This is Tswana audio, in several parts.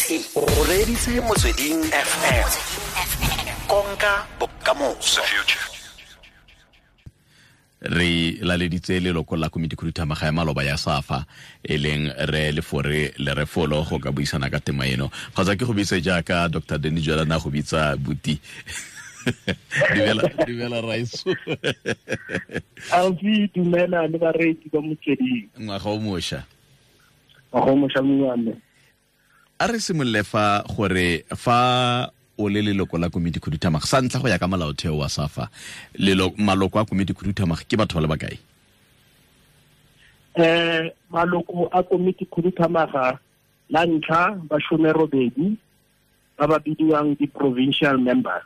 O reditse Motsweding FM, konka bokamoso. Re laleditse leloko la komiti khuduthamaga ya maloba ya SAFA, e leng re Lefore Lerefolo, go ka buisana ka tema eno. Kgotsa ke go bitse jaaka Dr Danny Jwalana go bitsa buti. Dumela, dumela raiso. Alfi, dumela le bareetsi ba Motsweding. Ngwaga o mošwa. Ngwaga o mošwa, mongwe. A re simolole fa gore fa o le leloko la komiti khuduthamaga, sa ntlha, go ya ka molaotheo wa SAFA, maloko a komiti khuduthamaga ke batho ba le bakae? Maloko a komiti khuduthamaga, la ntlha ba 18 ba ba bidiwang di-provincial members.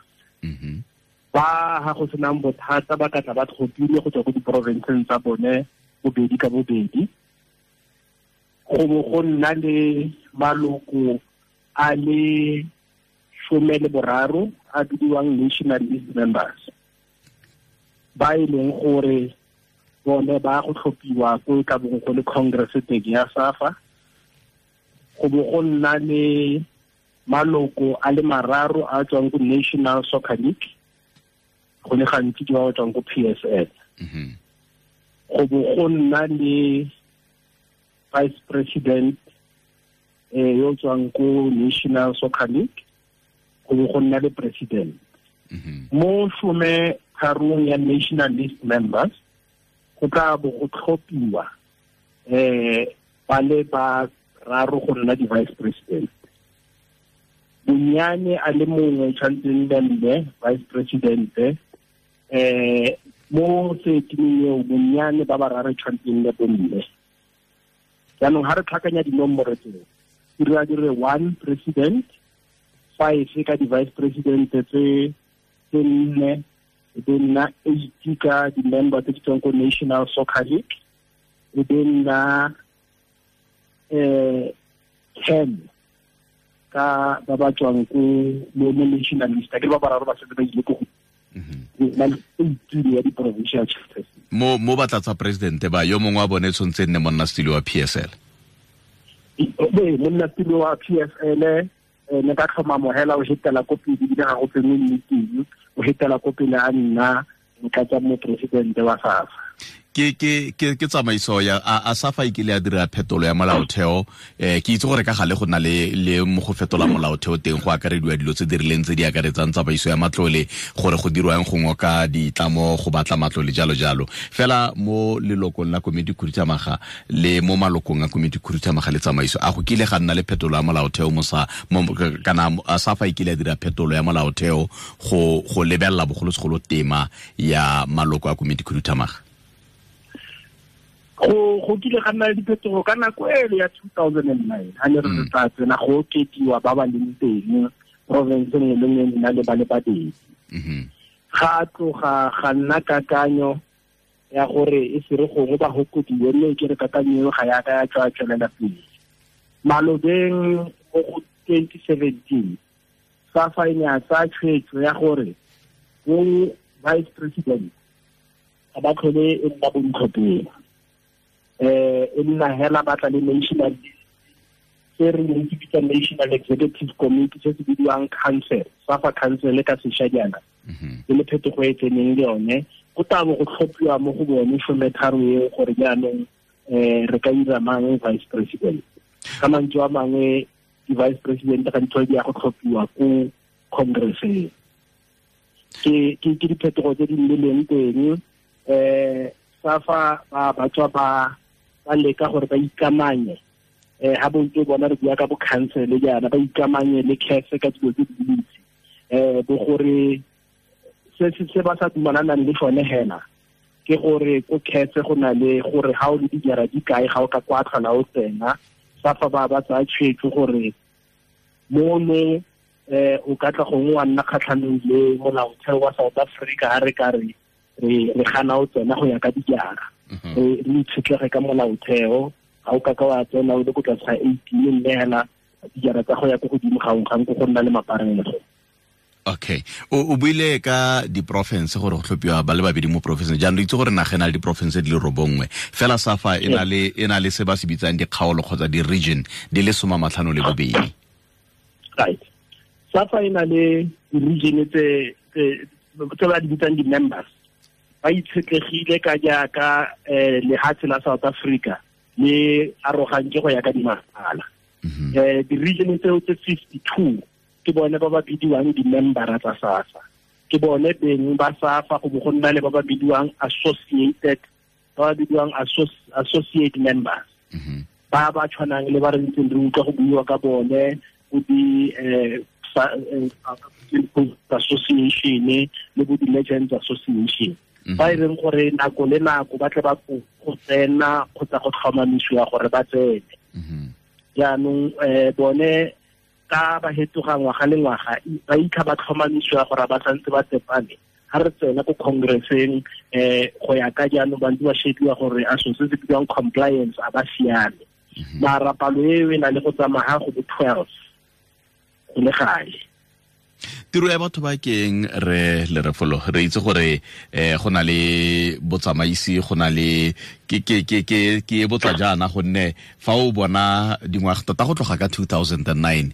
Ba ha go senang bothata ba ka tla ba tlhophile go tswa ko diporofenseng tsa bone bobedi ka bobedi. Go bo go nna le maloko a le 13 a bidiwang national list members, ba e leng gore bone ba go tlhophiwa ko e ka bong go le congress teng ya SAFA. Go bo go nna le maloko a le 3 a tswang ko National Soccer League, go le gantsi ke ba ba tswang ko PSL. Go bo go nna le vice president yo tswang ko National Soccer League, go bo go nna le president. Mo 13 ya national list members go tla bo go tlhophiwa ba le ba 3 go nna di-vice president. Bonyane a le mongwe tshwanetse nne mme vice president, mo setimeng eo bonyane ba bararo tshwanetse nne bomme. Jaanong ha re tlhakanya dinomoro tseo, di dira di re 1 president, 5 ka di-vice president tse 4, e be nna 8 ka di-member tse di tswang ko National Soccer League, e be nna 10 ka ba ba tswang ko mo national list. Ke ba bararo ba setse ba ile ko go na le 18 ya di-provincial chapters. Mo batlatsa presidente ba yo mongwe wa bone tshwanetse nne monnasetulo wa PSL. Ee, monnasetulo wa PSL ne ka tlhomamo hela o hetela ko pele, ebile ga go tsenwe meeting, o hetela ko pele a nna motlatsa moporesidente wa SAFA. Ke tsamaiso ya a SAFA e kile ya dira phetolo ya molaotheo. Ke itse gore ka gale go na le mo go fetola molaotheo teng go akarediwa dilo tse di rileng tse di akaretsang tsamaiso ya matlole, gore go dirwang go ngoka ditlamo, go batla matlole, jalo jalo. Fela mo lelokong la komiti khuduthamaga le mo malokong a komiti khuduthamaga le tsamaiso, a go kile ga nna le phetolo ya molaotheo mo sa, mo, kana a SAFA e kile ya dira phetolo ya molaotheo go lebelela bogolosegolo tema ya maloko a komiti khuduthamaga? Go kile ga nna le diphetogo ka nako ele ya 2009, ha ne re tla tsena go okediwa ba ba leng teng province nngwe le nngwe nna le ba le babedi. Ga tloga ga nna kakanyo ya gore e se re gongwe ba hokodiwe, mme ke re kakanyo eo ga ya ka ya tswa tswelela pele. Malobeng mo go 2017, SAFA e ne ya tsaya tshwetso ya gore bo vice president ga ba tlhole e nna bontlhopheng, e nna hela ba tla le national se re neng se bitsa National Executive Committee, se se bidiwang council, SAFA council ka sešwa jaana. E le phetogo e tseneng le yone, go tla bo go tlhophiwa mo go bone 13 eo gore jaanong re ka dira mang vice president. Ka mantswe a mangwe di-vice president ga di tlhole di ya go tlhophiwa ko congresseng. Ke diphetogo tse di nnileng teng. SAFA ba tswa ba leka gore ba ikamanye, ha bontse bona re bua ka bo council jaana, ba ikamanye le CAF ka dilo tse dintsi, bo gore se ba sa dumalanang le sone hela ke gore ko CAF go na le gore ha o le dijara di kae ga o ka kwa tlhola o tsena. SAFA ba tsaya tshwetso gore mono o ka tla gongwe wa nna kgatlhanong le molaotheo wa South Africa ha re ka re re gana o tsena go ya ka dijara. Re itshetlege ka molaotheo, ga o ka ka wa tsena o le ko tlase ga 18, mme hela dijara tsa go ya ko godimo ga go go nna le maparego. Okay, o buile ka di-province gore go tlhophiwa ba le babedi mo province. Jaanong re itse gore naga e na le di-province di le 9, fela SAFA e na le se ba se bitsang dikgaolo kgotsa di-region di le 52. Right. SAFA e na le di-region tse ba di bitsang di-members. Ba itshetlegile ka jaaka lehatshe la South Africa le arogantse go ya ka dimasala. Di-region tseo tse 52 ke bone ba ba bidiwang di-membera tsa SAFA. Ke bone beng ba SAFA, go bo go nna le ba ba bidiwang associated, ba ba bidiwang associate members. Ba ba tshwanang le ba re ntseng re utlwa go buiwa ka bone, go di association le bo di-legends association. Ba e reng gore nako le nako ba tle ba go tsena kgotsa go tlhomamisiwa gore ba tsene. Jaanong bone ka ba hetoga ngwaga le ngwaga ba itlha ba tlhomamisiwa gore ba santse ba tsepame. Ha re tsena ko congresseng go ya ka jaanong ba ntse ba shebiwa gore a so se se bidiwang compliance a ba siame. Mara palo eo e na le go tsamaya go bo 12 go le gale. Tiro ya batho ba keng re le refolo re itse gore go na le botsamaisi, go na le ke e botsa jaana gonne fa o bona dingwaga tota go tloga ka 2009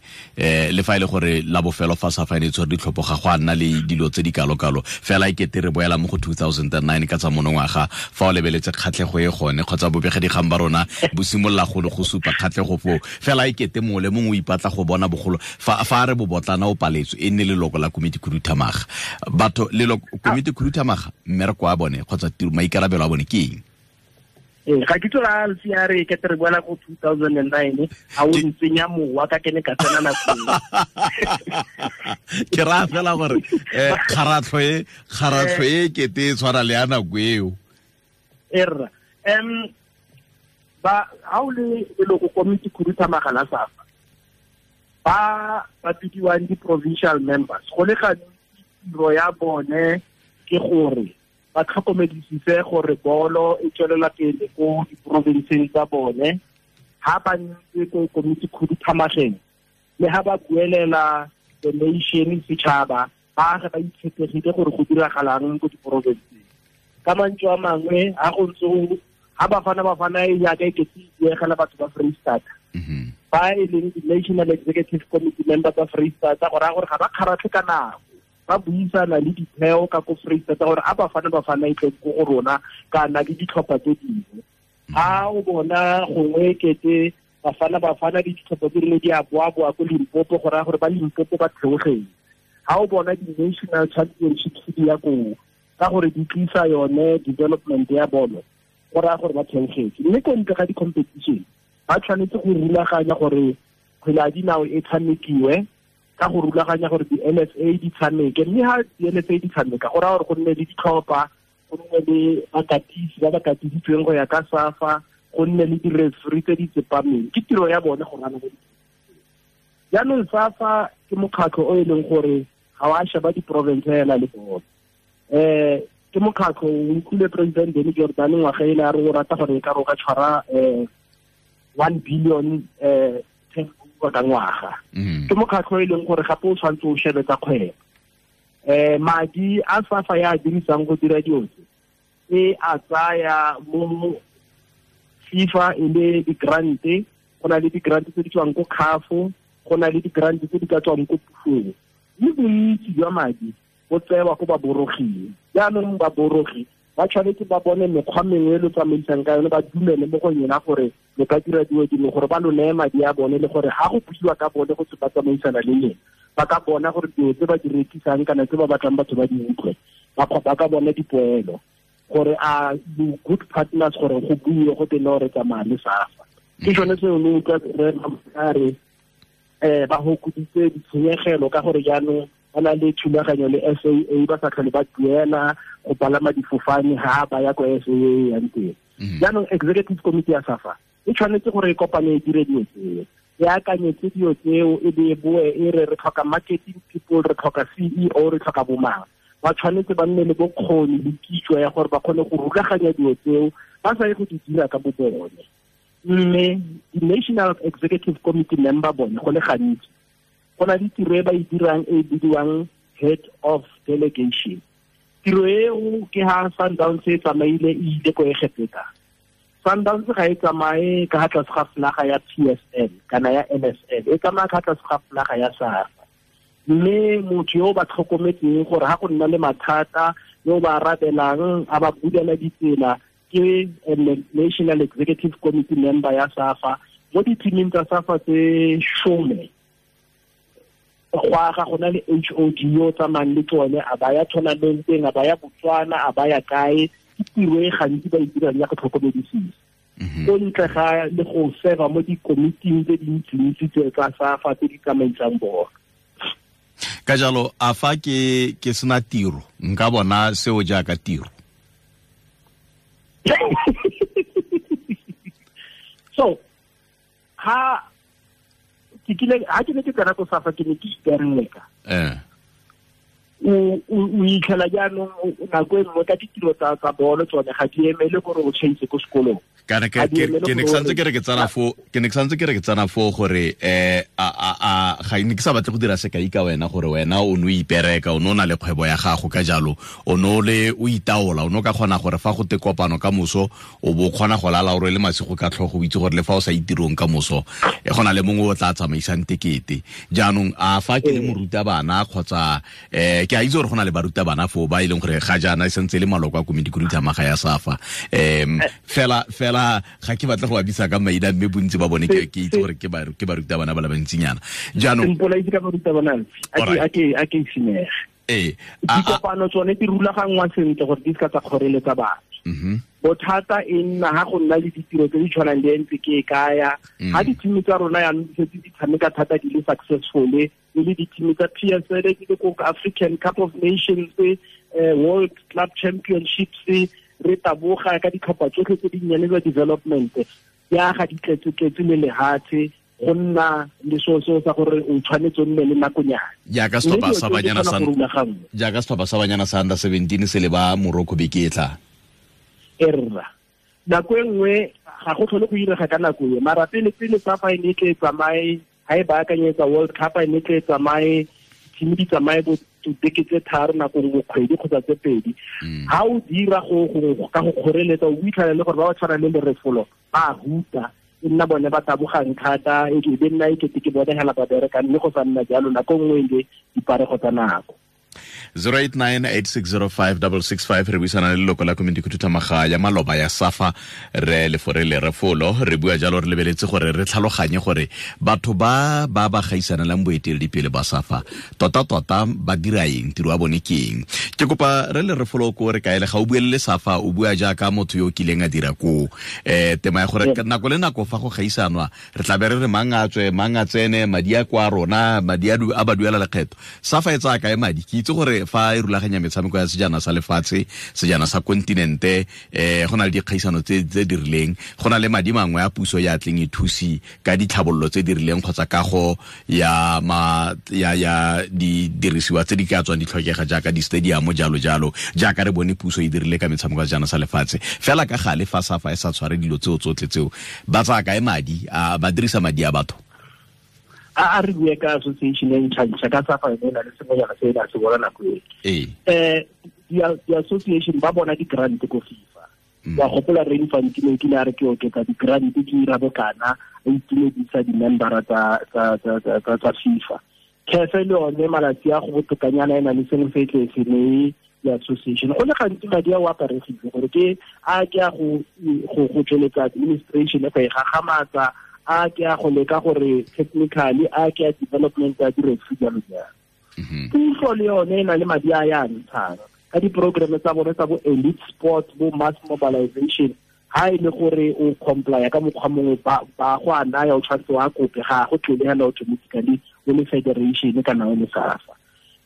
le fa ile gore la bofelo fa SAFA e tshwere ditlhopho ga go a nna le dilo tse di kalo-kalo, fela e kete re boela mo go 2009 ka tsa monongwaga. Fa o lebeletse kgatlhego e gone kgotsa bobegedigang ba rona bo simolola go supa kgatlhego foo, fela e kete mongwe le mongwe o ipatla go bona bogolo fa re bobotlana o paletswe e nne leloko la komiti khuduthamaga. Batho leloko komiti khuduthamaga mmereko wa bone kgotsa maikarabelo a bone ke eng? Ga ke tsola ntse ya re ke re boela go 2009 a o ntsenya mowa ka kene ka tsena nako. Ke ra fela gore kgaratlho e kete e tshwana le ya nako eo. Erra ba ha o le leloko komiti khuduthamaga la SAFA ba ba bidiwang di-provincial members, go le gantsi tiro ya bone ke gore ba tlhokomedisise gore bolo e tswelela pele ko diprovinseng tsa bone. Ha ba ntse ko komiti khuduthamageng le ha ba buelela the nation setšhaba, ba ge ba itshetlegile gore go diragalang ko diprovinseng. Ka mantswe a mangwe ha go ntse ha Bafana e jaaka e kete e diegela batho ba Freistata, ba e leng di-National Executive Committee member tsa Freistata, go raya gore ga ba kgaratlhe ka nako, ba buisana le ditheo ka ko Freistata gore a Bafana e tle ko go rona kana le ditlhopha tse dingwe. Ha o bona gongwe kete Bafana le ditlhopha tse dingwe di a boa-boa ko Limpopo, go raya gore ba Limpopo ba theogeng. Ha o bona di-national championships di ya koo ka gore di tlisa yone development ya bolo, go raya gore ba theogetse. Mme ko ntle ga di-competition ba tshwanetse go rulaganya gore kgwele ya dinao e tshamekiwe, ka go rulaganya gore di-LFA di tshameke. Mme ha di-LFA di tshameka go raya gore go nne le ditlhopha, go nne le bakatisi ba ba katisitsweng go ya ka SAFA, go nne le di-referee tse di tsepameng. Ke tiro ya bone go rana. Jaanong SAFA ke mokgatlho o e leng gore ga wa sheba di-province hela le bone. Ke mokgatlho o utlwile President Danny Jordan ngwaga ele a re o rata gore e ka re o ka tshwara 1 billion ka ngwaga. Ke mokgatlho e leng gore gape o tshwanetse o shebe tsa kgwebo. Madi a SAFA ya dirisang go dira dilo tse e a tsaya mo FIFA e le di-grant, go na le di-grant tse di tswang ko CAF, go na le di-grant tse di ka tswang ko pusong. Mme bontsi jwa madi bo tsewa ko baboroging. Jaanong baborogi ba tshwanetse ba bone mekgwa mengwe e lo tsamaisang ka yone, ba dumele mo go yona gore lo ka dira dilo dingwe gore ba lo neye madi a bone, le gore ha go buiwa ka bone go tse ba tsamaisana le leng, ba ka bona gore dilo tse ba di rekisang kana tse ba batlang batho ba di utlwe, ba ka bona dipoelo gore a good partners gore go buiwe go tene gore tsamaya le SAFA. Ke sone seo le utlwa re re ba hokoditse ditshenyegelo ka gore jaanong ba na le thulaganyo le SAA, ba sa tlhole ba duela go palama difofane ha ba ya ko SAA yang teng. Jaanong executive committee ya SAFA e tshwanetse gore e kopane e dire dilo tseo, e akanyetse dilo tseo, e be e boe e re re tlhoka marketing people, re tlhoka CEO, re tlhoka bomang. Ba tshwanetse ba nne le bokgoni le kitso ya gore ba kgone go rulaganya dilo tseo, ba sa ye go di dira ka bo bone. Mme di-National Executive Committee member bone go le gantsi go na le tiro e ba e dirang e bidiwang head of delegation. Tiro eo ke ha Sundowns e tsamaile e ile ko Egepeta. Sundowns ga e tsamaye ka tlase ga flaga ya PSL kana ya NSL, e tsamaya ka tlase ga flaga ya SAFA. Mme motho yo ba tlhokometseng gore ha go nna le mathata yo ba arabelang a ba bulela ditsela ke National Executive Committee member ya SAFA. Mo di-teaming tsa SAFA tse 10 go aga go na le HOD yo tsamayang le tsone, a ba ya tournamenteng, a ba ya Botswana, a ba ya kae. Ke tiro e gantsi ba e dirang ya go tlhokomedisisa. Ko ntle ga le go serva mo dikomiting tse dintsintsi tse tsa SAFA tse di tsamaisang bolo. Ka jalo a fa ke sena tiro nka bona seo jaaka tiro? So ha ke kile ha ke ne ke tsena ko SAFA ke ne ke ipereka. O itlhela jaanong nako e nngwe ka ditiro tsa bolo tsone ga di emele gore o tšhaise ko sekolong. Kana ke ne ke santse ke re ke tsana fo, ke ne ke santse ke re ke tsana fo gore a ga ne ke sa batle go dira sekai ka wena gore wena o no ipereka, o no na le kgwebo ya gago, ka jalo o no le o itaola, o no ka kgona gore fa go te kopano ka moso o bo kgona go lala o rwele masigo ka tlhogo, o itse gore le fa o sa itirong ka moso e gona le mongwe o tla tsamaisang tekete. Jaanong a fa ke le morutabana kgotsa ke a itse gore go na le barutabana foo ba e leng gore ga jaana e santse le maloko a komiti khuduthamaga ya SAFA, fela ga ke batla go abisa ka maina mme bontsi ba bone ke itse gore ke barutabana ba le bantsinyana. Jaanong a ke simege. Dikopano tsone di rulaganngwa sentle gore di se ka tsa kgoreletsa batho. Bothata e nna ha go nna le ditiro tse di tshwanang le ntse ke e kaya. Ha di-team tsa rona jaanong di setse di tshameka thata di le successful, e le di-team tsa PSL di le ko African Cup of Nations, World Club Championships, re taboga ka ditlhopha tsotlhe tse dinnyane tsa development ya ga di tletse-tletse le lehatshe, go nna le seo sa gore o tshwanetse o nne le nakonyana. Jaaka setlhopha sa banyana sa jaaka setlhopha sa banyana sa under 17 se le ba Morocco beke e tla. Erra nako e nngwe ga go tlhole go irega ka nako e, mara pele SAFA e ne tle tsamaye ha e baakanyetsa World Cup, e ne tle tsamaye team di tsamaye bo beke tse 3 nako nngwe kgwedi kgotsa tse 2. Ha o dira go ka go kgoreletsa o itlhela le gore ba ba tshwana le Lerefolo ba huta, e nna bone ba tabogang thata, e be nna e kete ke bone hela ba bereka, mme go sa nna jalo nako nngwe le diparego tsa nako. 0898605665 re buisana le leloko la komiti khuduthamaga ya maloba ya SAFA re Lefore Lerefolo. Re bua jalo re lebeletse gore re tlhaloganye gore batho ba ba gaisanelang boeteledipele ba SAFA tota ba dira eng, tiro ya bone ke eng. Ke kopa re Lerefolo ko re kaele ga o buelele SAFA, o bua jaaka motho yo o kileng a dira koo. Tema ya gore nako le nako fa go gaisanwa re tla be re re mang a tswe mang a tsene, madi a kwa rona, madi a ba duela lekgetho. SAFA e tsaya kae madi? Ke itse gore fa e rulaganya metshameko ya sejana sa lefatshe, sejana sa kontinente, go na le dikgaisano tse di rileng, go na le madi mangwe a puso ya tleng e thusi ka ditlhabololo tse di rileng kgotsa kago ya ya didirisiwa tse di ka tswang di tlhokega jaaka di-stadium jalo jalo, jaaka re bone puso e dirile ka metshameko ya sejana sa lefatshe. Fela ka gale fa SAFA e sa tshware dilo tseo tsotlhe tseo, ba tsaya kae madi? A ba dirisa madi a batho? A re bue ka association e ntšha ka SAFA e na le sengwenyana se e se bona nako e. Di-association ba bona di-grant ko FIFA. Wa gopola re Infantino kile a re ke oketsa di-grant ke ira bokana, a itumedisa di-membera tsa FIFA. CAF le yone malatsi a go botokanyana e na le sengwe se e tle se neye di-association. Go le gantsi madi a o aparegile gore ke a ke a go tsweletsa administration go e gagamatsa, a ke a go leka gore technically, a ke a development ya di-referee jalo jalo. Puso le yone e na le madi a ya ntshang ka di-programme tsa bone tsa bo elite sport, bo mass mobilization. Ha e le gore o complya ka mokgwa mongwe ba go a naya, o tshwanetse wa kope, ga go tlele hela automatically o le federation kana o le SAFA.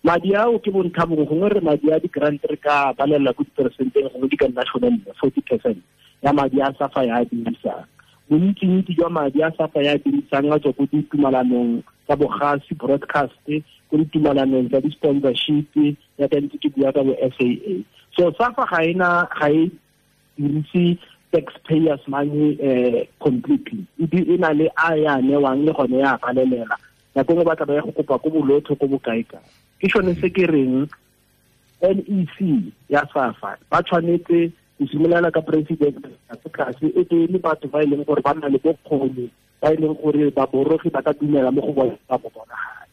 Madi ao ke bontlha bongwe, gongwe re madi a di-grant re ka balela ko diperesenteng, gongwe di ka nna 40% ya madi a SAFA ya a dirisang. Bontsi-ntsi jwa madi a SAFA ya dirisang a tswa ko ditumalanong tsa bogasi broadcast, ko ditumalanong tsa di-sponsorship, ya ka ntse ke bua ka bo SAA. So SAFA ga e dirise taxpayers money completely. E na le a ya newang le gone ya palelela. Nako nngwe ba tla ba ya go kopa ko bolotho ko bokae kae. Ke sone se ke reng NEC ya SAFA ba tshwanetse Go simolola ka president tlase e tee le batho ba e leng gore ba nna le bokgoni, ba e leng gore baborogi ba ka dumela mo go bone ba bo bonagale.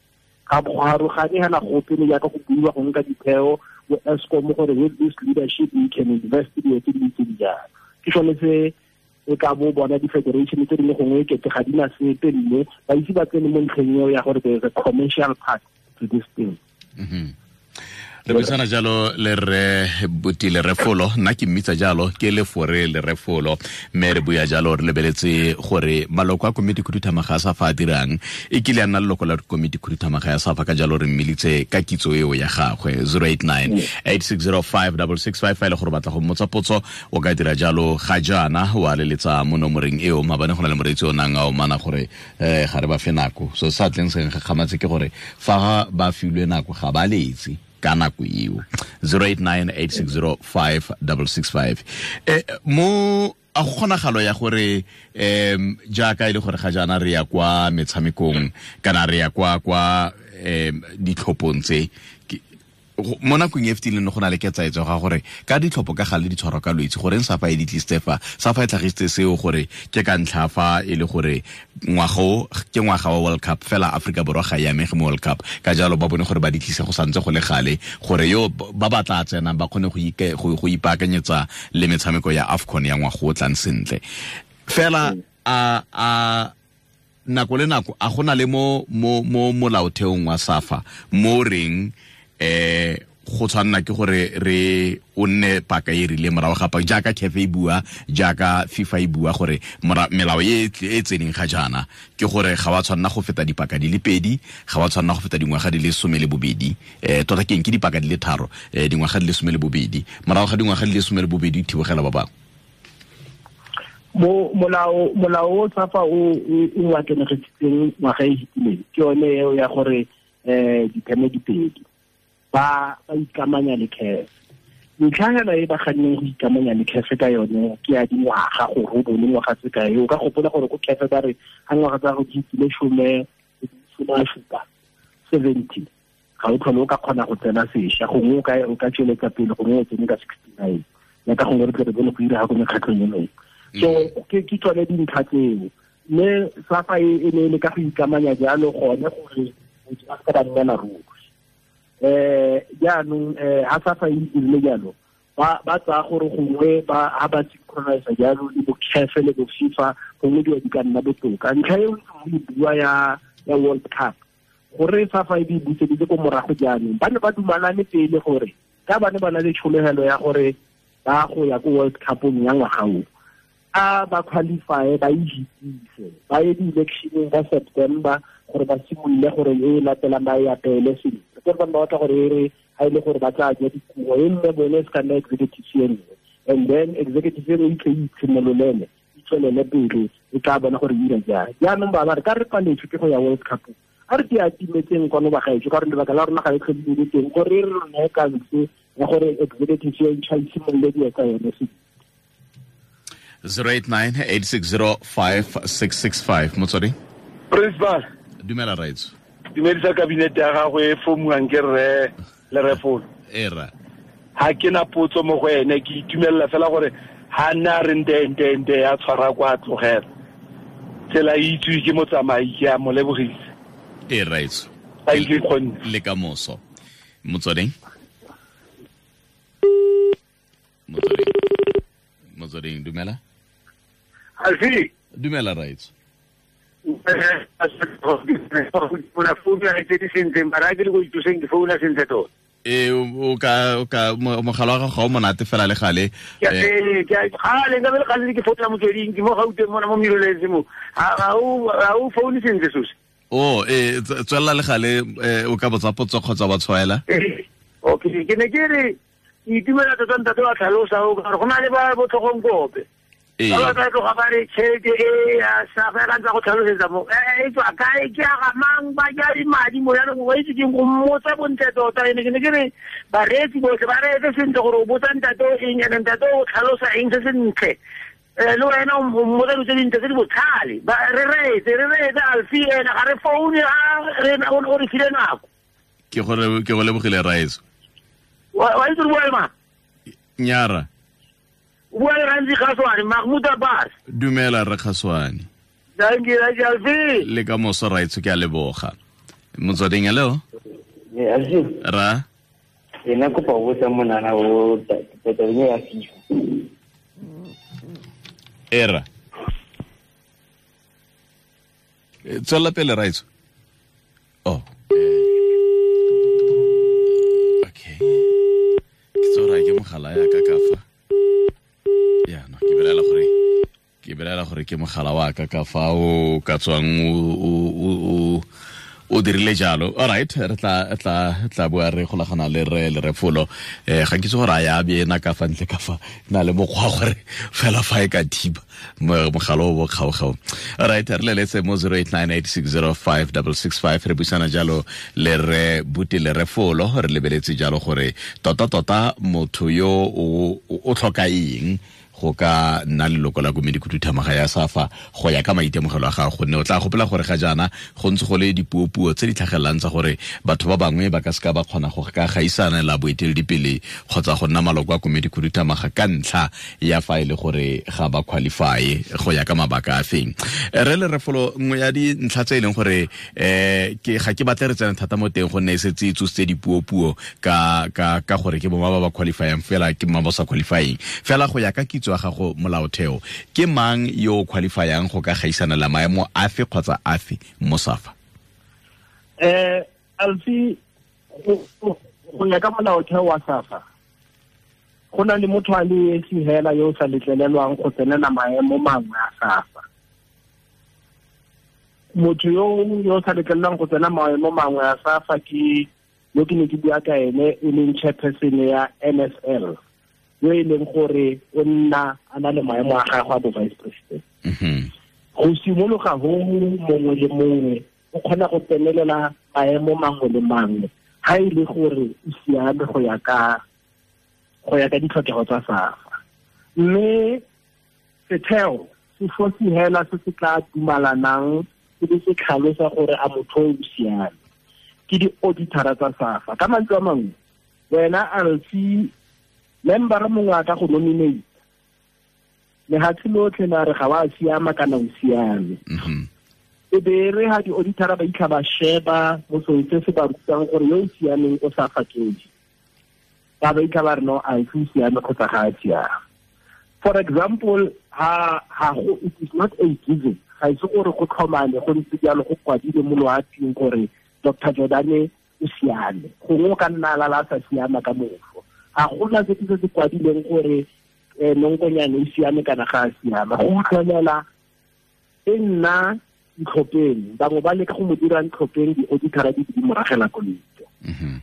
Ga go arogane hela gope le jaaka go buiwa go nka ditheo bo Eskom gore with this leadership we can invest dilo tse di ntseng jalo. Ke sone se e ka bo bona di-federation tse dingwe gongwe kete ga di na sepe, mme ba ise ba tsene mo ntlheng eo ya gore there is a commercial part to this thing. Re buisana jalo le re Buti Lerefolo, nna ke mmitsa jalo ke Lefore Lerefolo, mme re bua jalo re lebeletse gore maloko a komiti khuduthamaga ya SAFA a dirang. E kile a nna leloko la komiti khuduthamaga ya SAFA, ka jalo re mmilitse ka kitso eo ya gagwe. 089 860 5665 fa e le gore batla go mmotsa potso o ka dira jalo ga jaana wa leletsa mo nomoreng eo. Maabane go na le moreetsi o nang a omana gore ga re ba fe nako, so sa tleng seng gakgamatse ke gore fa ba filwe nako ga ba letse ka nako eo. 089 860 5665. Mo a go kgonagalo ya gore jaaka e le gore ga jaana re ya kwa metshamekong kana re ya kwa ditlhophong tse mo nakong e fetileng go na le ketsaetso ga gore ka ditlhopho ka gale di tshwarwa ka Lwetsi, goreng SAFA e di tlisitse fa SAFA e tlhagisitse seo gore ke ka ntlha fa e le gore ngwaga o ke ngwaga wa World Cup, fela Aforika Borwa ga e amege mo World Cup, ka jalo ba bone gore ba di tlise go santse go le gale gore yo ba ba tla tsenang ba kgone go ipaakanyetsa le metshameko ya AFCON ya ngwaga o tlang sentle. Fela a nako le nako a gona le mo mo mo molaotheong wa SAFA mo reng go tshwanna ke gore re o nne paka e rile morago ga paka jaaka CAF e bua, jaaka FIFA e bua, gore melao e e tseneng ga jaana ke gore ga wa tshwanna go feta dipaka di le pedi, ga wa tshwanna go feta dingwaga di le 12, tota keng ke dipaka di le tharo, dingwaga di le 12, morago ga dingwaga di le 12 thibogela ba bangwe. Mo molao o SAFA o akenegesitseng ngwaga e fetileng ke yone eo ya gore ditheme di pedi ba ikamanya le CAF. Ntlha hela e ba ganneng go ikamanya le CAF ka yone ke ya dingwaga, gore o bone ngwaga tse kae. O ka gopola gore ko CAF ba re ga ngwaga tsa go di fetile 70, 70 ga o tlhole o ka kgona go tsena sešwa, gongwe o ka tsweletsa pele, gongwe o tsene ka 69, jaaka gongwe re tle re bone go ira ga ko mekgatlhong e mengwe. So ke tsone dintlha tseo, mme SAFA e ne e le ka go ikamanya jalo gone gore motho a se ka ba nnela ruri. Jaanong ha SAFA e dirile jalo ba tsaya gore gongwe ba ha ba synchronize jalo le bo CAF le bo FIFA, gongwe dilo di ka nna botoka. Ntlha e o e bua ya World Cup, gore SAFA e di buseditse ko morago jaanong, ba ne ba dumalane pele gore ka ba ne ba na le tshologelo ya gore ba go ya ko World Cupong ya ngwaga o, a ba qualify, ba e ba ye di-electioneng ka September gore ba simolole gore e latelang ba e apele sentle. Gore ba batla gore e re ha e le gore ba tla ja dikuo e nne bone, se ka nna executive e nngwe, and then executive e nngwe e tle e itshimololele, e tswelele pele, e tla bona gore e ira jang. Jaanong ba ba re ka re paletswe ke go ya World Cup, a re di atimetseng kwano bagaetsho, ka gore lebaka la rona ga e tlhole le teng gore re rone kanse ya gore executive e ntšha e simolole dilo tsa yone sentle. 089 860 5665. Motswedi. Principal. Dumela raitso. Dumedisa kabinete ya gago e fomuang ke rre Lerefolo. Era. Ha ke na potso mo go ene, ke itumelela fela gore ha nna re nte nte nte ya tshwara kwa tlogela. Tsela e itswe ke motsamai, ke a mo lebogisa. E raitso. Thank you, kgonne. Le ka moso. Motsweding. Motsweding. Motsweding, dumela. Alfi. Dumela raitso. Una founa tse di sentle, mara ke le go ithuseng ke founa sentle tota. E o ka mogala wa gago ga o monate fela le gale. Gale nka be le gale ke founa Motsweding, ke mo Gauteng mona mo Miroletse mo. Ga o foune sentle sose. O tswelela le gale, o ka botsa potso kgotsa wa tshwaela. Okay, ke ne ke re ke itumela tota ntate wa tlhalosa o ka gore go na le ba botlhogong kope. Ba tla tloga ba re tšhelete e ya SAFA ka ntse go tlhalosetsa mo e tswa kae, ke ya ga mang, ba ja madi mo jaanong wa itse keng go mmotsa bontle tota. Ene ke ne ke re bareetsi botlhe ba reetse sentle gore o botsa ntate o eng, ene ntate o tlhalosa eng se sentle, le wena o mmotsa dilo tse dintle tse di botlhale. Re reetse Alfi ene ga re foune, o re file nako. Ke go lebogile raetso. Wa itse re bua le mang? Nyara. O bua le Ramzi Kgaswane, Mahmoud Abbas. Dumela re Kgaswane. Thank you, Alfi. Le ka moso raitso ke a leboga. Motsweding, hello. Alfi. Ra. Ena kopa go botsa monana o tabeng ya FIFA. Era. Tswela pele raitso. Oh. Okay. Ke tsora ke mogala ya ka ka fa. Ya no, ke belela gore ke mogala wa ka ka fa o ka tswang o dirile jalo. All right, re tla bua re golagana le re le Refolo. Ga ke itse gore a ya be ena ka fa ntle ka fa na le mokgwa gore fela fa e ka thiba mogala o bo kgaogao. All right, re leletse mo 0898605665 re buisana jalo le re Buti le Refolo, re lebeletse jalo gore tota motho yo o tlhoka eng go ka nna leloko la komedi khuduthamaga ya SAFA go ya ka maitemogelo a gago, gonne o tla gopola gore ga jaana go ntse go le dipuopuo tse di tlhagelelang tsa gore batho ba bangwe ba ka seka ba kgona go ka gaisana la boeteledipele kgotsa go nna maloko a komedi khuduthamaga ka ntlha ya fa e le gore ga ba qualify go ya ka mabaka a feng. Re le Refolo, nngwe ya dintlha tse e leng gore ke ga ke batle re tsene thata mo teng gonne e setse e tsositse dipuopuo ka gore ke boma ba ba qualifyang fela ke boma ba sa qualifying fela go ya ka kitso ya gago molaotheo, ke mang yo o qualifyang go ka gaisana la maemo afe kgotsa afe mo SAFA? Alfi, go ya ka molaotheo wa SAFA, go na le motho a le esi hela yo o sa letlelelwang go tsenela maemo mangwe a SAFA. Motho yo sa letlelelwang go tsena maemo mangwe a SAFA ke yo ke ne ke bua ka ene, e leng chairperson ya NSL, yo e leng gore o nna a na le maemo a gagwe a bo vice president. Go simologa ho mongwe le mongwe o kgona go tsenelela maemo mangwe le mangwe ha e le gore o siame go ya ka ditlhokego tsa SAFA. Mme setheo se fosi hela se se tla dumalanang se be se tlhalosa gore a motho o siame ke di-auditara tsa SAFA. Ka mantswe a mangwe, wena Alfi, member mongwe a ka go nominate lehatshe lotlhe la re ga wa siama kana o siame. E be re ha di-auditara ba itlha ba sheba mo seo se se ba rutang gore yo o siameng o sa fakedi, ba ba itlha ba re no, a o siame kgotsa ga a siama. For example, ha go, it is not a given, ga ise gore go tlhomane go ntse jalo go kwadile mo loaping gore Dr. Jordane o siame, gongwe o ka nna a lala a sa siama ka mofo. Ga gona se se kwadileng gore nonkonyane o siame kana ga a siama. Go utlwelela e nna ntlhopheng, bangwe ba leka go mo dira ntlhopheng, di-auditara di di moragela koloi.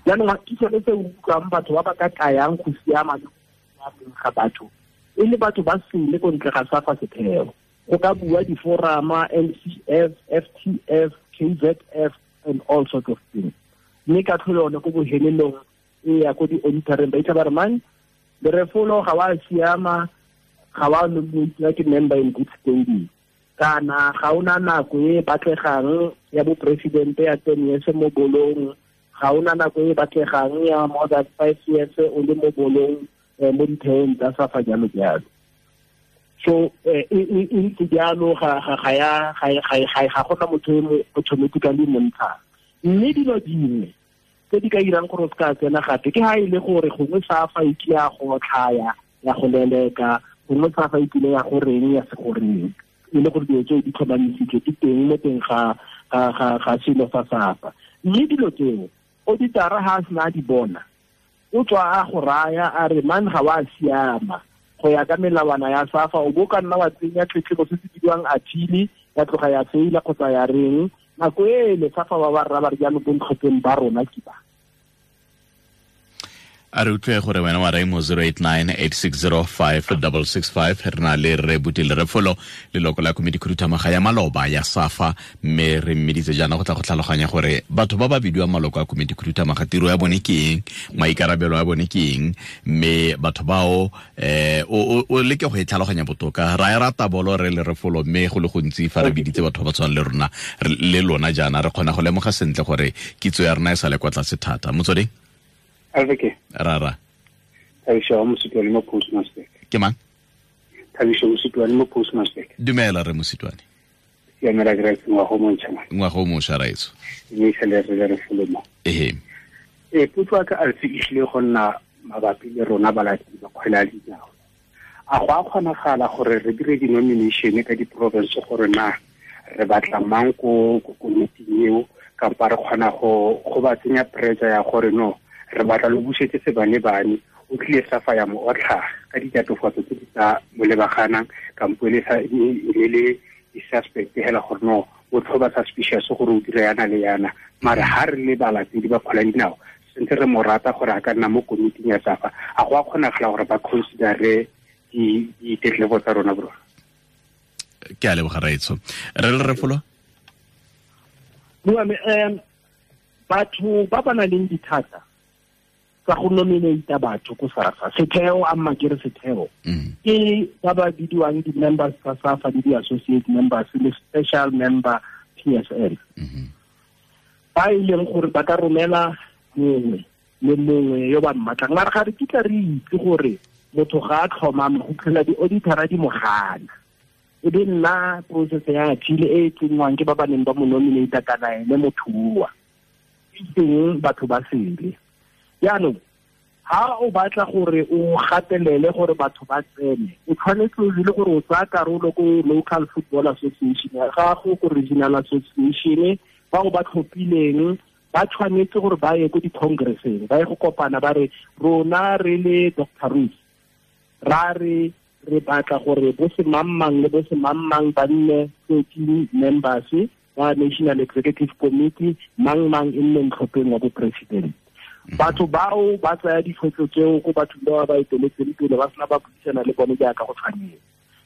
Jaanong ke sone se utlwang batho ba ba ka kayang go siama le go siameng ga batho e le batho ba sele ko ntle ga SAFA setheo. Go ka bua diforama, NCF, FTF, KZF and all sorts of things. Mme ka tlholo yone ko bohelelong e ya ko di-auditoreng ba itla ba re mang Lerefolo ga wa siama, ga wa nominatiwa ke member in good standing, kana ga ona nako e batlegang ya bo presidente ya 10 years mo bolong, ga ona nako e batlegang ya more than 5 years o le mo bolong mo ditheong tsa SAFA jalo jalo. So e ntse jalo ga gona motho e mo automatically montshang. Mme dilo dingwe tse di ka irang gore o se ka tsena gape ke ha e le gore gongwe SAFA e kile ya go tlhaya ya go leleka, gongwe SAFA e kile ya go reng ya se go reng, e le gore dilo tseo di tlhomamisitswe di teng mo teng ga selo sa SAFA. Mme dilo tseo auditara ha a sena a di bona, o tswa a go raya a re man ga wa siama go ya ka melawana ya SAFA, o bo ka nna wa tsenya tletlebo se se bidiwang appeal, ya tloga ya faila kgotsa ya reng. Nako e le SAFA ba ba rra ba re jaanong bontlhopheng ba rona ke ba. A re utlwe gore wena wa reng mo 0898605665. Re na le re Buti le Refolo, leloko la komedi khuduthamaga ya maloba ya SAFA, mme re mmeditse jaana go tla go tlhaloganya gore batho ba ba bidiwang maloko a komedi khuduthamaga tiro ya bone ke eng, maikarabelo a bone ke eng, mme batho bao o leke go e tlhaloganya botoka. Ra e rata bolo re le Refolo, mme go le gontsi fa re biditse batho ba ba tshwanang le rona le lona jaana re kgona go lemoga sentle gore kitso ya rona e sa le kwa tlase thata. Motsweding. Alveke. Rara. Aisha, mo Postmaster. Ke mang? Thabiso Mositwane mo Postmaster. Dumela re Mositwane. Siamela ke ngwaga o montšha. Ngwaga o mošwa raetso. Mme sele re re folomo. Ehe. Potso ya ka Alfi e tlile go nna mabapi le rona balatedi ba kgwele ya dinao. A go a kgonagala gore re dire di-nomination ka di-province gore na re batla mang ko komiting eo, kampa re kgona go ba tsenya pressure ya gore no re batla lo busetse sebane-bane o tlile SAFA ya mo otlha ka ditatofatso tse di sa mo lebaganang, kampo e le di-suspect hela gore no o tlhoba suspicious gore o dira yana le yana. Mare ha re le balatedi ba kgwele ya dinao sentse re mo rata gore a ka nna mo komiting ya SAFA, a go a kgonagala gore ba considere ditetlebo tsa rona bro? Ke a leboga raetso. Re le Refolo? Bua me batho ba ba nang le dithata tsa go nominate batho ko SAFA, setheo a mma ke re setheo ke ba ba bidiwang di-members tsa SAFA le di-associate members le special member PSL, ba e leng gore ba ka romela mongwe le mongwe yo ba mmatlang. Mara ga re kitla re itse gore motho ga a tlhomama go tlhola di-auditora di mo gana, e be nna process ya appeal e e tsenngwang ke ba ba neng ba mo nominate kana ene motho oa e teng batho ba sele. Jaanong ha o batla gore o gatelele gore batho ba tsene, o tshwanetse o le gore o tsaya karolo ko local football association ya gago, ko regional association, bao ba tlhophileng ba tshwanetse gore ba ye ko di-congresseng, ba ye go kopana ba re rona re le Dr. Ruth ra re re batla gore bo semangmang le bo semangmang ba nne 13 members ba National Executive Committee, mang-mang e nne ntlhopheng wa bo-president. Batho bao ba tsaya ditshwetso tseo ko bathong ba ba eteletseng pele ba sena ba buisana le bone jaaka go tshwanetse.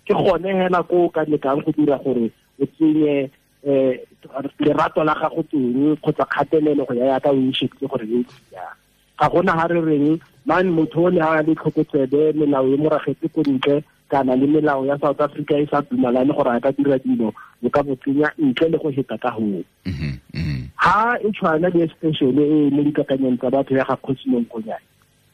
Ke gone hela ko o ka lekang go dira gore o tsenye lerato la gago teng kgotsa kgatelelo go ya yaka o e shebile gore e jang. Ga gona ha re reng man motho o ne a le tlhokotsebe melao e moragetse ko ntle kana le melao ya South Africa e sa dumalane gore a ka dira dilo, o ka bo tsenya ntle le go heta ka hoo. Ha e tshwana le special e mo dikakanyong tsa batho ya ga Kgosi Monkonyane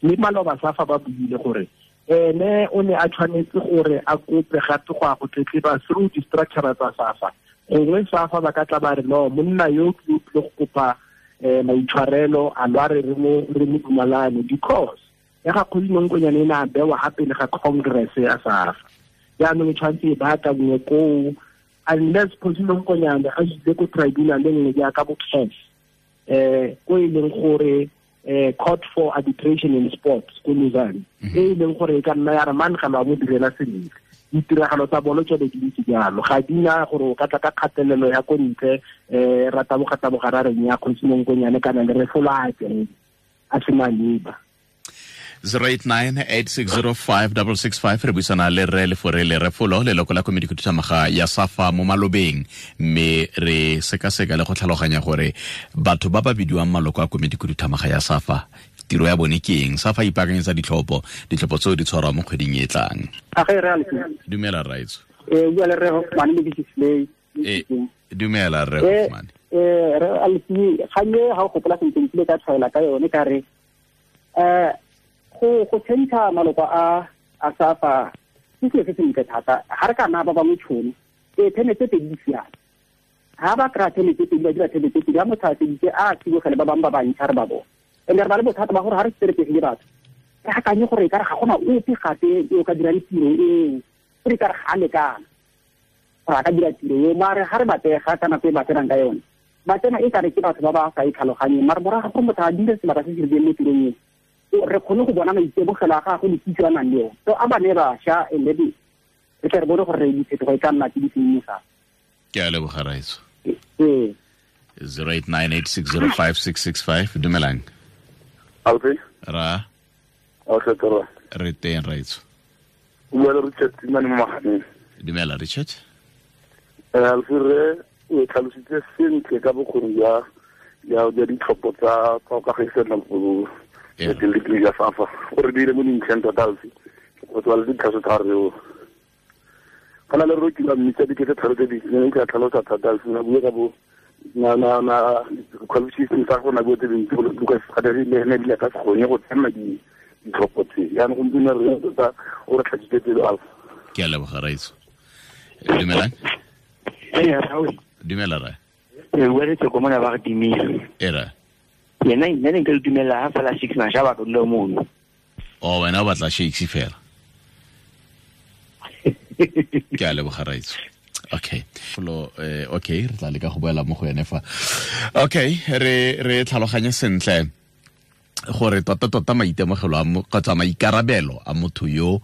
le maloba SAFA ba buile gore ene o ne a tshwanetse gore a kope gape go ya go tletleba through di-structure tsa SAFA. Gongwe SAFA ba ka tla ba re no monna yo ke o tlile go kopa maitshwarelo a lwa re mo dumalane, because ya ga Kgosi Monkonyane e ne a bewa gape le ga congress ya SAFA. Jaanong e tshwanetse e baakangwe koo, unless Kgosi Monkonyane a ile ko tribunal e nngwe jaaka bo CAF, ko e leng gore Court for Arbitration in Sports ko Lausanne, e leng gore e ka nna ya re man ga ba mo direla sentle. Ditiragalo tsa bolo tsone di ntse jalo, ga di na gore o ka tla ka kgatelelo ya ko ntle ra taboga ra reng ya Kgosi Monkonyane kana le Refolo a tsene a se maleba. 089-8605-665 re buisana le Rre Leforele Refolo, leloko la komiti khuduthamaga ya SAFA mo malobeng, mme re sekaseka le go tlhaloganya gore batho ba ba bidiwang maloko a komiti khuduthamaga ya SAFA tiro ya bone ke eng. SAFA ipaakanyetsa ditlhopho tseo di tshwarwa mo kgweding e tlang. Dumela raetso. Bua le Rre Hoffman mo Display. Dumela Rre Hoffman. Re Alfi ganye ga o gopola sentle nkile ka tshwaela ka yone ka re go tshentsha maloko a SAFA ke selo se sentle thata. Ga re ka nna ba bangwe tšhono theme tse pedi di siame. Ga ba kry-a theme tse pedi ba dira theme tse pedi, ga motho a feditse a tsibogele ba bangwe ba bantšha re ba bone. And re ba le bothata ba gore ga re seteretegile batho re akanye gore e kare ga gona ope gape yo o ka dirang tiro eo, gore e kare ga a lekana gore a ka dira tiro eo. Mare ga re batega ka nako e ba tsenang ka yone, ba tsena e kare ke batho ba ba sa e tlhaloganyeng. Mare morago gore motho a dire sebaka se se rileng mo tirong eo, re kgone go bona maitemogelo a gagwe le kitso a nang le yone. So a ba ne bašwa and then re tle re bone gore diphetogo e ka nna tse di seng mo SAFA. Ke a leboga raetso. 0898605665 dumelang. Alfi? Ra. Okay, toro. Re teng raetso. O bua le Richard Tsimane mo Maganeng. Dumela Richard. Alfi, re o tlhalositse sentle ka bokgoni jwa ditlhopho tsa go kagisana go eteledipele ya SAFA. O re dire mo dintlheng tota Alfi, go tswa le ditlhaso tsa re o kana le re ke la mmitsa dikete tharo tse di ne ke a tlhalosa thata Alfi, na bua ka bo na qualification tsa go na bua tse dintsi go Lucas Gadari le ene ebile a ka se kgone go tsena ditlhopho tse. Jaanong gompieno re tota o re tlhatsitse pelo Alfi. Ke a leboga raitso. Dumelang. Dumela ra. E bua le tsoko mona ba re timile. Era. Yena nna ne nka le dumela ha fela 6 masha ba ka dula mono. Oh, wena o batla shakes fela. Ke a leboga raitso. Okay. Folo okay, re tla leka go boela mo go ene fa. Okay, re tlhaloganye sentle gore tota maitemogelo a kgotsa maikarabelo a motho yo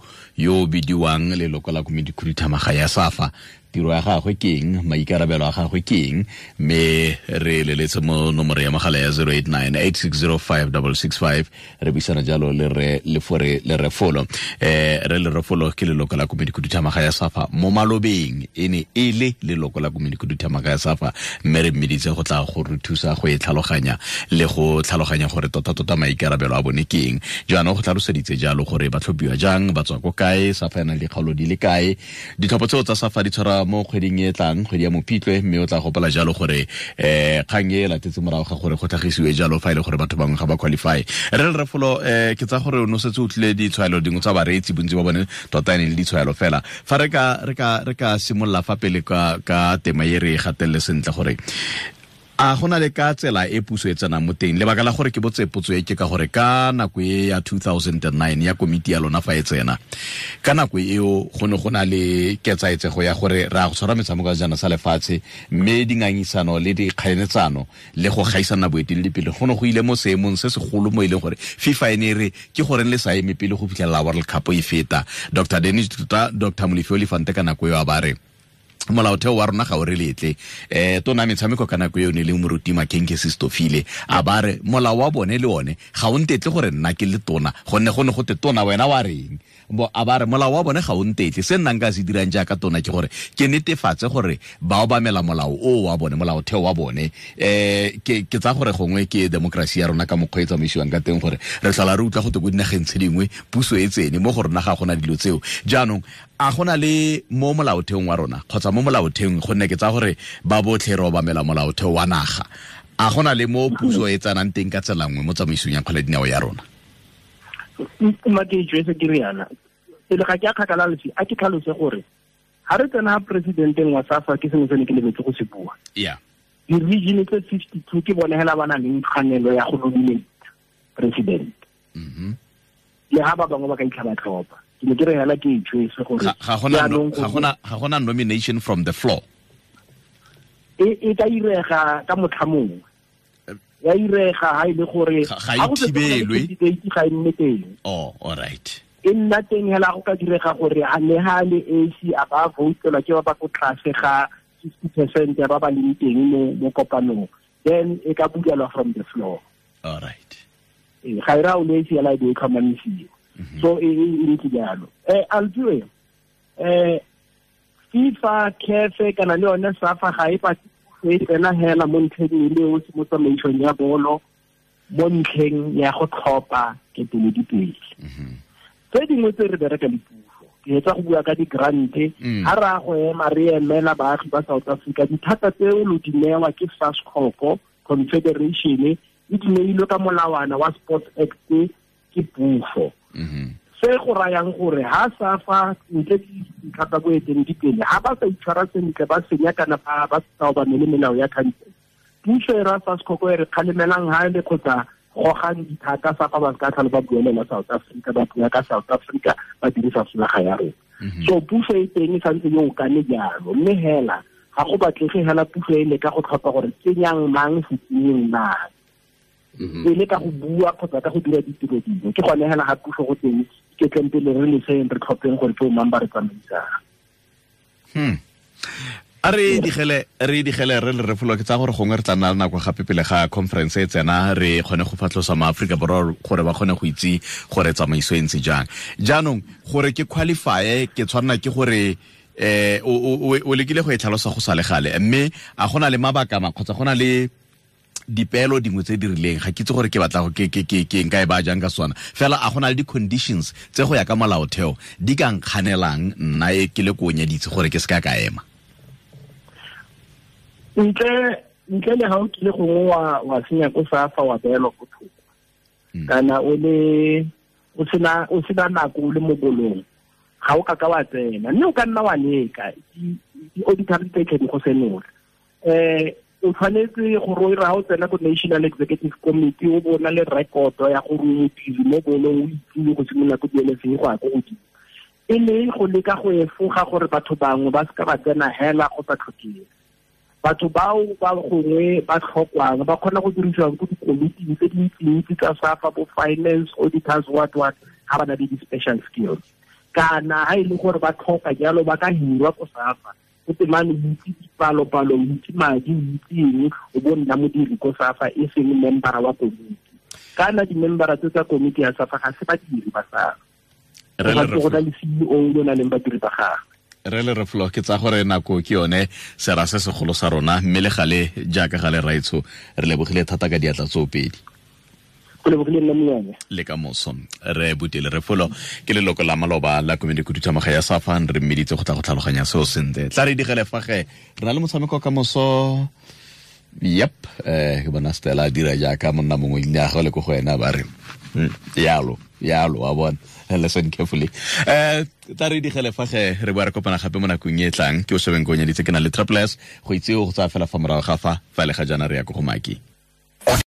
bidiwang leloko la komiti khuduthamaga ya SAFA, tiro ya gagwe ke eng, maikarabelo a gagwe ke eng, mme re leletse mo nomoro ya mogala ya 089 8605665 re buisana jalo le re Lefore Lerefolo. Re Lerefolo ke leloko la komiti khuduthamaga ya SAFA mo malobeng, e ne e le leloko la komiti khuduthamaga ya SAFA, mme re mmeditse go tla go re thusa go e tlhaloganya le go tlhaloganya gore tota maikarabelo a bone ke eng. Jaanong go tlhaloseditse jalo gore ba tlhophiwa jang, ba tswa ko kae, SAFA e na le dikgaolo di le kae, ditlhopho tseo tsa SAFA di tshwara mo kgweding e tlang, kgwedi ya Mopitlwe, mme o tla gopola jalo gore kgang e latetse morago ga gore go tlhagisiwe jalo fa e le gore batho bangwe ga ba qualify. Re Lerefolo, ke tsa gore o no setse o tlile ditshwaelo dingwe tsa bareetsi, bontsi ba bone tota e ne le ditshwaelo fela. Fa re ka simolola fa pele ka tema e re e gatelele sentle gore a gona le ka tsela e puso e tsenang mo teng. Lebaka la gore ke botse potso e ke ka gore ka nako e ya 2009 ya komiti ya lona fa e tsena, ka nako eo go ne go na le ketsaetsego ya gore re a go tshwara metshameko ya sejana sa lefatshe, mme dingangisano le dikgaeletsano le go gaisana boeteledipele go ne go ile mo seemong se segolo mo e leng gore FIFA e ne e re ke goreng le sa eme pele go fitlhelela World Cup e feta. Dr. Dennis Tuta, Dr. Molefi Olifante ka nako eo a ba re molaotheo wa rona ga o re letle. Tona metshameko ka nako eo ne le moruti Makenke Sistofile a ba re molao wa bone le one ga o ntetle gore nna ke le tona, gonne go ne go te tona wena wa reng, bo a ba re molao wa bone ga o ntetle, se nna nka se dirang jaaka tona ke gore ke netefatse gore ba obamela molao o wa bone, molaotheo wa bone. Ke tsa gore gongwe ke democracy ya rona ka mokgwa e tsamaisiwang ka teng, gore re tlhola re utlwa go te ko dinageng tse dingwe puso e tsene, mo go rona ga gona dilo tseo. Jaanong a gona le mo molaotheong wa rona kgotsa mo molaotheong, gonne ke tsa gore ba botlhe re obamela molaotheo wa naga, a gona le mo puso e tsenang teng ka tsela nngwe mo tsamaisong ya kgwele dinao ya rona? Mma ke ijwetse ke riana pele ga ke a kgakala lefsi, a ke tlhalose gore ga re tsena presidenteng wa SAFA ke sengwe se ne ke lebetse go se bua. Yeah. Di-region tse 52 ke bone hela ba na leng tshwanelo ya go nominate president. Le ha ba bangwe ba ka itlha ba tlhopha. Ke ne ke re hela ke ijwetse gore ga gona nomination from the floor. E ka irega ka motlha mongwe. Ya irega ha ile gore ga e thibelwe, ga e nne teng. Oh, all right. E nna teng hela go ka direga gore a le ha le AC a ba votelwa ke ba ba ko tlase ga 60% ya ba ba leng teng mo kopanong, then e ka bulelwa from the floor. All right. Ga e ra o le AC ya la e tlhomamisiwa. So e ntse jalo. Altswe FIFA, CAF kana le yone SAFA ga e patse e tsena hela mo ntlheng e le o mo tsamaisong ya bolo, mo ntlheng ya go tlhopha keteledipele. Tse dingwe tse re bereka le puso, ke etsa go bua ka di-grant, ha re a go ema re emela baagi ba South Africa, dithata tseo lo di newa ke SASCOC Confederation, e di neilwe ka molawana wa Sports Act ke puso. Se go rayang gore ha SAFA ntle le dintlha tsa boeteledipele ha ba sa itshwara sentle, ba senya kana ba sa obamele melao ya country, puso e ra SASCOC e re kgalemelang ha le kgotsa gogang dithata SAFA ba ka tlhalo ba buelela South Africa, ba bua ka South Africa ba dirisa folaga ya rona. So puso e teng e santse yo kane jalo, mme hela ga go batlege hela puso e leka go tlhopha gore tsenyang mang se tsenyeng mang, e le ka go bua kgotsa ka go dira ditiro dingwe. Ke gone hela ga puso go teng ke tleng pele re leseng re tlhopheng gore ke o mang ba re tsamaisang. A re digele re Lerefolo, ke tsa gore gongwe re tla nna le nako gape pele ga conference e tsena, re kgone go fatlhosa maAforika Borwa gore ba kgone go itse gore tsamaiso e ntse jang. Jaanong gore ke qualify ke tshwanela ke gore o lekile go e tlhalosa go sa le gale, mme a gona le mabaka ma kgotsa gona le dipeelo dingwe tse di rileng, ga ke itse gore ke batla go ke nka e ba jang ka sona fela, a gona le di-conditions tse go ya ka molaotheo di ka nkganelang nna e ke le ko nyeditse gore ke se ka ema? Ntle le ha o kile gongwe wa senya ko SAFA wa beelwa ko thoko, kana o sena nako o le mo bolong, Ga o ka ka wa tsena, mme o ka nna wa leka, di-auditor di tla di go senola. O tshwanetse gore o ire ga o tsena ko National Executive Committee, o bona le rekoto ya gore o modiri mo bolong, o itsile go simolola ko di-LFA go ya ko godimo. E le go leka go efoga gore batho bangwe ba seka ba tsena hela go sa tlhokege. Batho bao ba gongwe ba tlhokwang ba kgona go dirisiwang ko dikomiting tse dintsintsi tsa SAFA, bo finance, auditors, what what, ga ba na le di-special skills. Kana ha e le gore ba tlhoka jalo, ba ka hirwa ko SAFA. O temane o itse dipalopalo, o itse madi, o itse eng, o bo nna modiri ko SAFA, e seng membera wa komiti. Kana di-membera tse tsa komiti ya SAFA ga se badiri ba SAFA. Go na le CEO yo nang le badiri ba gagwe. Re le Refolo, ke tsa gore nako ke yone sera se segolo sa rona, mme le gale jaaka gale raitsho, re lebogile thata ka diatla tsoopedi. Go lebogile nna monyane. Le ka moso. Re Butele Refolo ke leloko la maloba la komiti khuduthamaga ya SAFA, re mmeditse go tla go tlhaloganya seo sentle. Tla re digele fa ge re na le motshameko ka moso. Yep, ke bona Stella a dira jaaka monna mongwe ile a go le ko go ena ba re yalo yalo, wa bona, listen carefully. Tla re digele fa ge re boa re kopana gape mo nakong e tlang. Ke o shebeng ko nyeditse ke na le Triple S go itse go tsaya fela fa morago ga fa le ga jaana re ya ko go Maki.